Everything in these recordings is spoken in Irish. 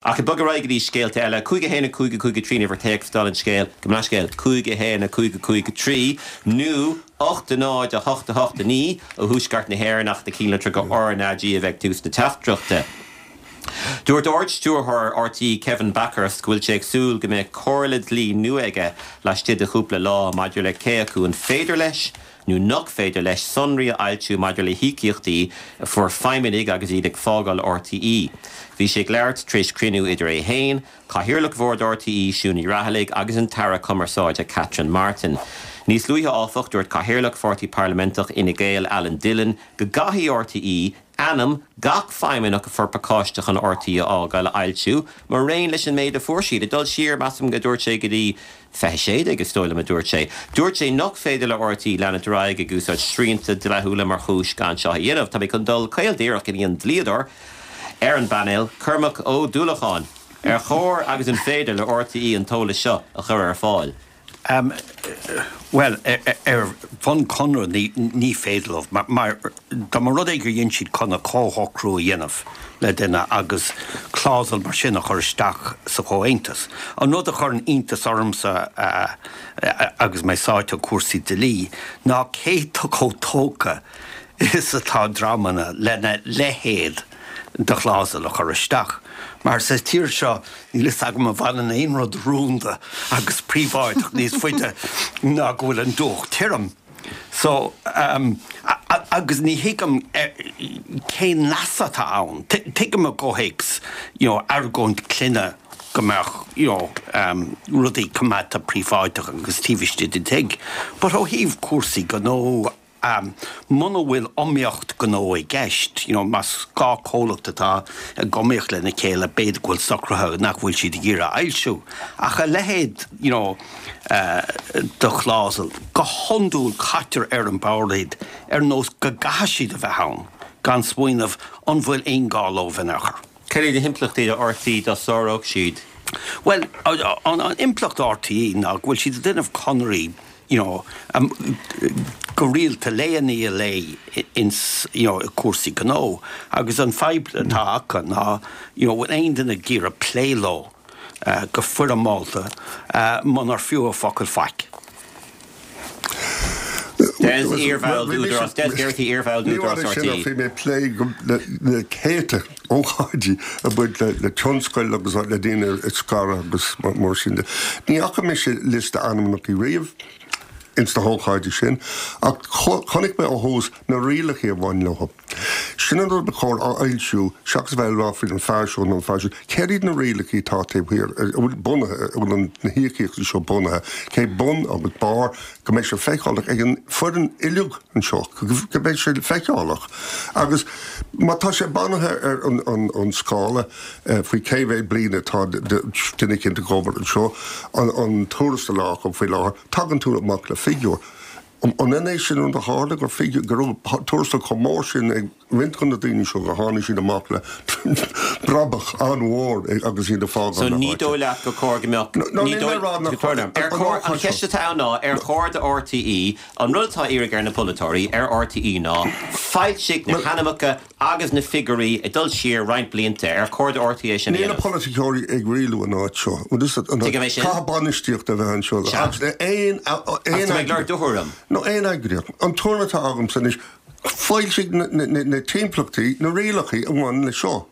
Ach ag bogadh ar aghaidh go dtí scéalta eile, 5 1 5 5 3 an uimhir téacs dála an scéil, gabh mo leithscéal, 5 1 5 5 3 nó 8 0 8 8 9 ó thuaisceart na hÉireann ach na cinnlitreacha RnaG a bheith ag tús na teachtaireachta. Dúirt Ard-Stiúrthóir RTÉ Kevin Bakhurst go bhfuil sé ag súil go mbeidh comhairle dlí nua aige laistigh de chúpla lá maidir le cé acu an féidir leis nó nach féidir leis sonraí a fhoilsiú maidir le híocaíochtaí a fuair feidhmeannaigh agus iad ag fágáil RTÉ. Bhí sé ag labhairt tar éis cruinniú idir é féin, Cathaoirleach Bhord RTÉ, Siún Ní Raghallaigh agus an tAire Cumarsáide Catherine Martin. Níos luaithe áfach, dúirt Cathaoirleach Pháirtí Parlaiminteach Fhine Gael, Alan Dillon, go gcaithfidh RTÉ ainm gach feidhmeannach a fuair pacáiste chun RTÉ a fhágáil a fhoilsiú, maraon leis an méid a fuair siad. Ag dul siar, measaim, a dúirt sé, go dtí 2016, is dóigh liom, a dúirt sé. Dúirt sé nach féidir le RTÉ leanúint ar aghaidh ag úsáid srianta dlíthiúla mar chúis gan seo a dhéanamh. Tá mé chun dul caol díreach go dtí an dlíodóir ar an bpainéal, Cormac Ó Dúlacháin. Ar chóir agus an féidir le RTÉ an t-eolas seo a chur ar fáil? Bhuel, ar bhonn conradh ní féidir leo, mar dá mba rud é gur dhein siad conradh comhshocrú a dhéanamh le duine agus clásal mar sin a chur isteach sa chomhaontas. An rud a chuireann iontas ormsa agus mé sáite i gcúrsaí dlí ná cé chomh tógtha is atá dreamanna lena leithéid de chlásal a chur isteach. Mar sa tír seo níl fhios agam an bhfanann aon rud rúnda agus príobháideach níos faide ná go bhfuil an deoch tirim. So, agus ní thuigim cén leas atá ann. Tuigim i gcomhthéacs, you know, argóint clainne go mbeadh, you know, rudaí coimeádta príobháideach agus taobh istigh den tigh. But ó thaobh cúrsaí gnó, muna bhfuil iomaíocht gnó i gceist, you know, más 2 comhlacht atá ag iomaíocht lena chéile, b'fhéidir go bhfuil socruithe nach bhfuil siad ag iarraidh a fhoilsiú. Ach a leithéid, you know, de chlásal, go hiondúil caitear ar an bord iad ar nós go gcaithfidh siad a bheith ann, gan smaoineamh an bhfuil aon gá leo in aon chor. Cad iad na himpleachtaí do RTÉ dá sáródh siad? Bhuel, an impleacht do RTÉ ná go bhfuil siad ag déanamh conarthaí you know, go rialta lae i ndiaidh lae ins, you know, i cúrsaí gnó agus an fadhb atá acu ná, you know, bhfuil aon duine ag iarraidh plé leo go foirmeálta munar fiú a focal faic. Des, iarbhall d'Údarás, Des Geraghty, iarbhall d'Údarás RTÉ. Bhí mé ag plé le céadta ócáidí ag baint le tionscail agus le daoine ag scaradh agus mar sin de. Ní fhaca mise liosta ainmneacha riamh ins na hócáidí sin ach chonaic mé ó thús na rialacha a bhain leo. Sin an rud ba chóir a fhoilsiú seachas a bheith ag rá faoin fear seo nó an fear siúd. Céard iad na rialacha atá taobh thiar, a bhfuil bunaithe, a bhfuil na híocaíochtaí seo bunaithe, cé bun agus barr, go mbeidh sé feiceálach ag an foireann uilig anseo, go mbeidh sé feiceálach. Agus má tá sé bunaithe ar an scála faoi cé mhéad bliain atá duine éicint ag obair anseo, an tuarastal acu faoi láthair, tagann tú amach le figiúr. An ionann é sin rud a tharla, gur figiúr, go raibh tuarastal chomh mór sin ag roinnt de na daoine seo gur tháinig siad amach le brabach an-mhór agus iad ag fágáil So na ní háite? dóigh leat gur chóir go mbeadh, No, ní níl mé dóigh, ag rá nach tóir orm, ar an chóir, an ócáid cheist seo. atá ann ná, ar chóir do RTÉ, an rud atá á iarraidh ar na polaiteoirí, ar RTÉ ná, foilsigh na Bhuel, hainmneacha Agus na figiúirí ag dul siar roinnt blianta, ar chóir do RTÉ sin a Níl na dhéanamh? polaiticeoirí ag rialú an áit seo. Bhuel, is Tuigim é sin. caithfidh bainistíocht a bheith anseo. Sea. Agus aon Agus tá mé ag lorg do thuairim. No aon eagraíocht. An tuairim atá agamsa anois, foilsigh na timpeallachtaí, na rialacha a bhaineann leis seo.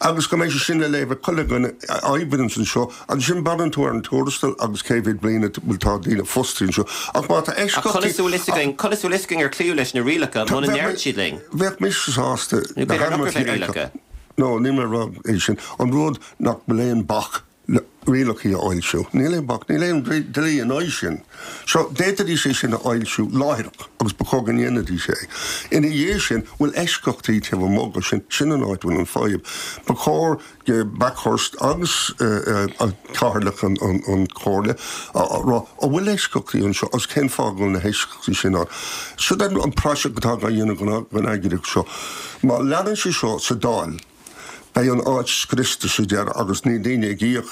Agus go mbeidh sé sin le léamh ag chuile dhuine a oibríonns anseo. Ansin braitheann tú ar an tuarastal agus cé mhéad bliain a bhfuil tá daoine fostaithe anseo. Ach má tá Ach eisceachtaí. conas a bhfuil fhios againn, conas a bhfuil fhios againn ar cloíodh leis na rialacha muna ndeireann siad linn? Bheadh mise sásta Nó na b'fhéidir nach raibh hainmneacha aon a rialacha. fheiceáil. No, níl mé ag rá é sin. An rud nach bhfuil aon bac le rialacha a fhoilsiú. Níl aon bac, níl aon dlí in aghaidh sin. So, d'fhéadfaidís é sin a fhoilsiú láithreach agus ba chóir go ndéanfaidís é. Ina dhiaidh sin, bhfuil eisceachtaí taobh amuigh de sin, sin an áit a bhfuil an fadhb. Ba chóir do Bakhurst agus Cathaoirleach an Chomhairle a rá, an bhfuil eisceachtaí anseo agus cén fáth go bhfuil na heisceachtaí sin ann. Siod an praiseach atá á dhéanamh den eagraíocht seo. Má leanann sé seo sa Dáil. Beidh an áit scriosta sa deireadh agus níl daoine ag íoc,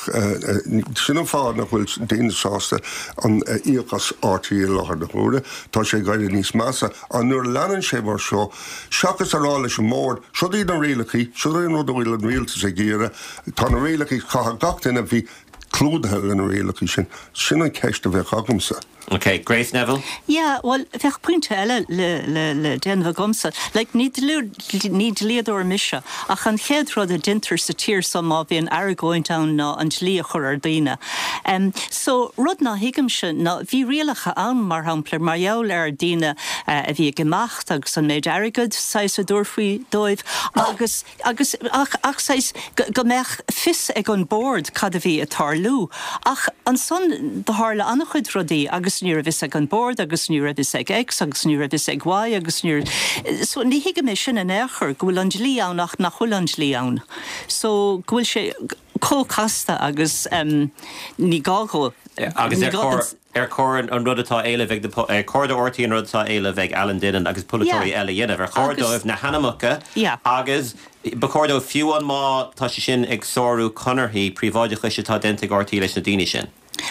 sin an fáth nach bhfuil daoine sásta an íoc as RTÉ i láthair na huaire. Tá sé ag éirí níos measa. Ach nuair a leanann sé mar seo, seachas a rá leis an mbord, siod iad na rialacha, siod é an rud a bhfuil an rialtas ag iarraidh, tá na rialacha, caithfidh gach duine a bheith clúdaithe le na rialacha sin. Sin an cheist a bheadh agamsa. Ok, Grace Neville? Yeah, bhuel, bheadh pointe eile le, le, le déanamh agamsa. Like, ní ní dlíodóir mise, ach an chéad rud a deintear sa tír so má bhíonn argóint ann ná an dlí a chur ar daoine. Em, so, rud ná thuigimse ná, bhí rialacha ann, mar shampla, mar gheall ar daoine a bhí ag imeacht agus an méid airgead, saghas, a dtabharfaí dóibh agus, Agus, ach, ach saghas, go, go mbeadh fios ag an bord cad a bhí ag tarlú. Ach ansan do tharla an-chuid rudaí agus ní raibh fhios ag an bord agus ní raibh fhios ag X agus ní raibh fhios ag Y agus ní raibh, so ní thuigim é sin in aon chor, go bhfuil an dlí ann ach nach bhfuil an dlí ann. So go bhfuil sé chomh casta agus em ní gá dhó, Agus ní ar gá chóir, don. ar chóir an rud atá á éileamh ag na, ar chóir do RTÉ an rud atá á éileamh ag Alan Dinan agus polaiteoirí Yeah. eile a dhéanamh? Ar chóir Agus. dóibh na hainmneacha Yeah. agus ba chóir dóibh, fiú amháin má tá sé sin ag sárú conarthaí príobháideachais atá déanta ag RTÉ leis na daoine sin?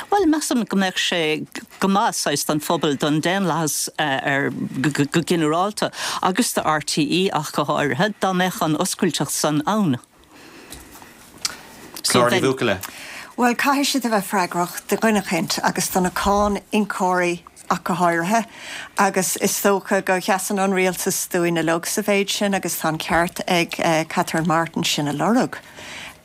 Bhuel, measaim go mbeadh sé go maith saghas don phobal, don daonlathas ar go ginearálta agus do RTÉ ach go háirithe, dá mbeadh an oscailteacht san ann. Clár Ní Bhuachalla. Bhuel, caithfidh siad a bheith freagrach do dhuine eicínt agus do na cáin-íocóirí ach go háirithe, agus is dócha go sheasann an rialtas dúinn uilig sa mhéid sin agus tá an ceart ag Catherine Martin sin a lorg.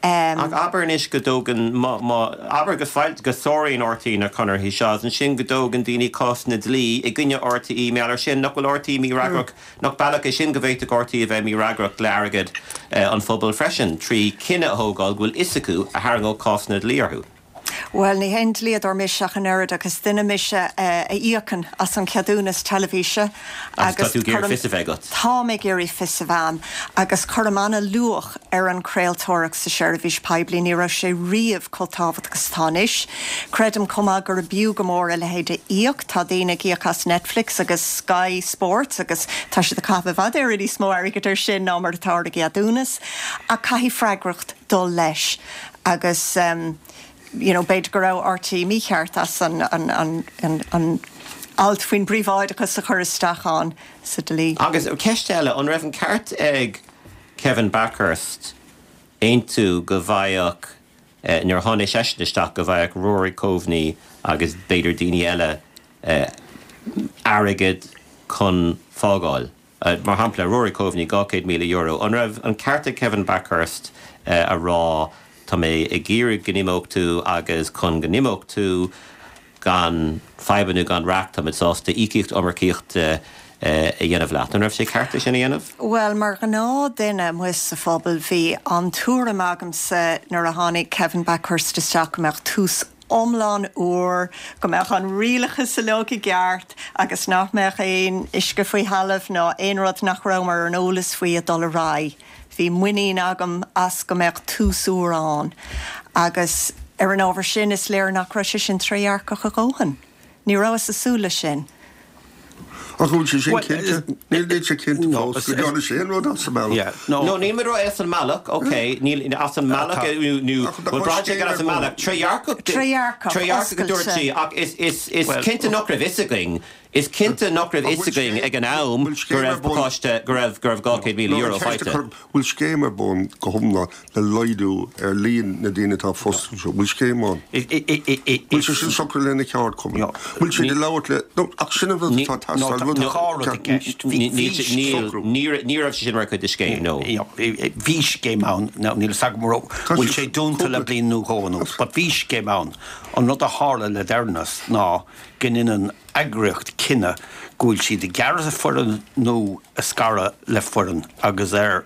Ach abair anois go dtógann, má, má, abair go foil, go sáraíonn RTÉ na conarthaí seo agus ansin go dtógann daoine cásanna dlí i gcoinne RTÉ mar gheall air sin, nach bhfuil RTÉ mífhreagrach Nach bealach é sin go bhféadfadh RTÉ a bheith mífhreagrach le airgead an phobail freisin, trí chinneadh a thógáil go bhfuil fhios acu a tharraingeodh cásanna dlí orthu? Bhuel, ní haon dlíodóir mise ach an oiread ach is duine mise a íocann as an cheadúnas teilifíse Agus tá tú ag iarraidh fios a bheith agat. Táim ag iarraidh fios a bheith a'm agus cuirim an-luach ar an chraoltóireacht sa seirbhís poiblí. Ní raibh sé riamh chomh tábhachtach is atá anois. Creidim chomh maith gurb fhiú go mór a leithéid a íoc. Tá daoine ag íoc as Netflix agus Sky Sports agus tá siad ag caitheamh i bhfad Éireann níos mó airgid air sin ná mar atá ar a gceadúnas. Ach caithfidh freagracht dul leis agus you know b'fhéidir go raibh RTÉ mícheart as an an an an an alt faoin bpríobháideachas a chur isteach ann sa dlí. Agus ceist eile, an raibh an ceart ag Kevin Bakhurst aontú go bhfaigheadh nuair a tháinig seisean isteach, go bhfaigheadh Rory Coveney agus b'fhéidir daoine eile airgead chun fágáil. Mar shampla, Rory Coveney, €200,000. An raibh an ceart ag Kevin Bakhurst a rá tá mé ag iarraidh go n-imeodh tú agus chun go n-imeodh tú gan fadhbanna nó gan raic táimid sásta íocaíocht iomarcaíochta a dhéanamh leat. An raibh sé ceart é sin a dhéanamh? Bhuel, mar ghnáth-dhuine amuigh sa phobal, bhí an tuairim agamsa nuair a tháinig Kevin Bakhurst isteach go mbeadh tús iomlán úr, go mbeadh an rialachas uilig i gceart agus nach mbeadh aon uisce faoi thalamh ná aon rud nach rabhamar ar an eolas faoi ag dul ar aghaidh. Bhí muinín agam as go mbeadh tús úr ann agus ar an ábhar sin is léir nach raibh sé sin trédhearcach a dhóthain. Ní rabhas ag súil leis sin. Ach an bhfuil sé sin cinnte? Níl sé cinnte fós go ndearna sé aon rud as an mbealach. No, níl muid rá as an mbealach, ok, níl as an mbealach nó bhuel braitheann sé gur as an mbealach, trédhearcach, Trédhearcach, trédhearcach a dúirt sí, ach is, is, is cinnte nach raibh fhios againn, is cinnte nach raibh fhios againn ag an am go raibh pacáiste, go raibh, go raibh €200,000 faighte. Bhfuil scéim ar bun go hiomlán le laghdú ar líon na daoine atá fostaithe anseo? Bhfuil scéim ann? Bhfuil sé sin socraithe le na ceardchumainn? Bhfuil siad ag labhairt le, no, ach sin an rud atá ag teastáil, rud Tá rud i gceist. Ní raibh sé sin mar chuid de scéim, no. Bhí scéim ann, níl a fhios agam an raibh, bhfuil sé dúnta le bliain nó dhó anuas, but bhí scéim ann. An rud a tharla le deireanas ná go ndéanann eagraíocht cinneadh go bhfuil siad ag gearradh foireann nó ag scaradh le foireann agus ar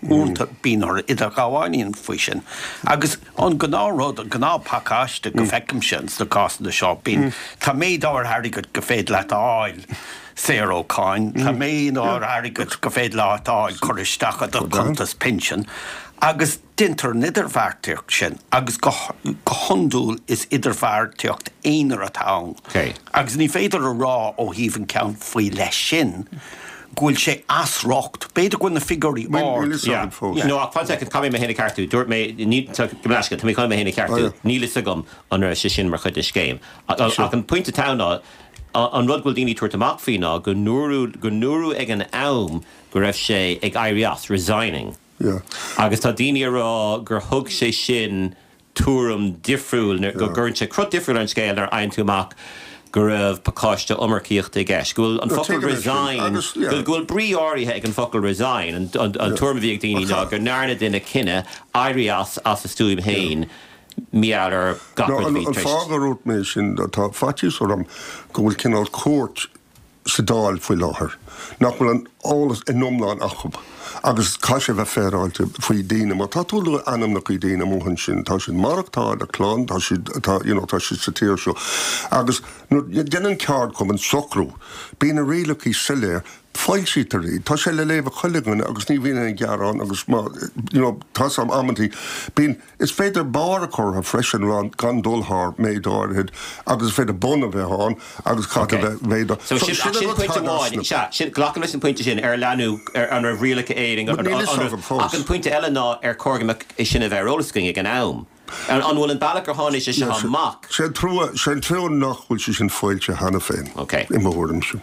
uaireanta bíonn orthu idirghabháil a dhéanamh faoi sin. Agus an gnáthrud, an gnáthphacáiste go bhfeicimse sna cásanna seo, bíonn, tá méid áirithe airgid go féidir leat a fháil saor ó cháin, tá méid áirithe airgid go féidir leat a fháil curtha isteach i do chuntas pinsin agus, Déantar an idirbheartaíocht sin agus go hiondúil is idirbheartaíocht aonair atá ann agus ní féidir a rá ó thaobh an ceann faoi leith sin. go bhfuil sé as riocht. B'fhéidir go bhfuil na figiúirí ard. Níl fhios agam fós. No, ach fan soicind, caithfidh mé mé féin a cheartú. Dúirt mé, ní, tá, gabh mo leithscéal, tá mé chun mé féin a cheartú. Níl fhios agam an raibh sé sin mar chuid den scéim. Ach an pointe atá ann ná, an rud go bhfuil daoine ag tabhairt amach faoi ná go ndúradh, go ndúradh ag an am go raibh sé ag éirí as, resigning. Agus tá daoine ag rá gur thug sé sin tuairim difriúil, go gcuireann sé cruth difriúil ar an scéal nuair a fhaigheann tú amach go raibh pacáiste iomarcaíochta i gceist, go bhfuil an focal resign, go bhfuil brí áirithe ag an focal resign, an tuairim a bhí ag daoine ná go ndearna duine cinneadh éirí as as a stuaim féin mar gheall ar gach rud a bhí tar éis. An fáth a ndúirt mé sin, tá faitíos orm go bhfuil cineál cuairt sa Dáil faoi láthair nach bhfuil an eolas in iomlán acu agus caithfidh sé bheith féaráilte faoi daoine. Má tá tú ag lua ainmneacha daoine amuigh ansin, tá siad maireachtáil a clann, tá siad, tá, you know, tá siad sa tír seo agus nuair a dhéanann ceardchumann socrú, bíonn na rialacha soiléir, foilsítear iad, tá sé le léamh ag chuile dhuine agus ní bhíonn aon ghearán agus má, you know, tá 's agam amantaí, bíonn. Is féidir barr a chur orthu freisin, gan dul thar méid áirithe, agus is féidir bun a bheith ann agus caithfidh a bheith méid. So sin, ach sin pointe amháin, sea, sin, glacaim leis an pointe sin, ar leanadh, ar, an raibh rialacha Éirinn, an, an, an raibh, ach an pointe eile ná ar chóir go mbeadh é sin a bheith ar eolas againn ag an am. An, an bhfuil an bealach ar tháinig sé seo amach? Sé an trua, sé an trua nach bhfuil sé sin foilsithe cheana féin, i mo thuairimse.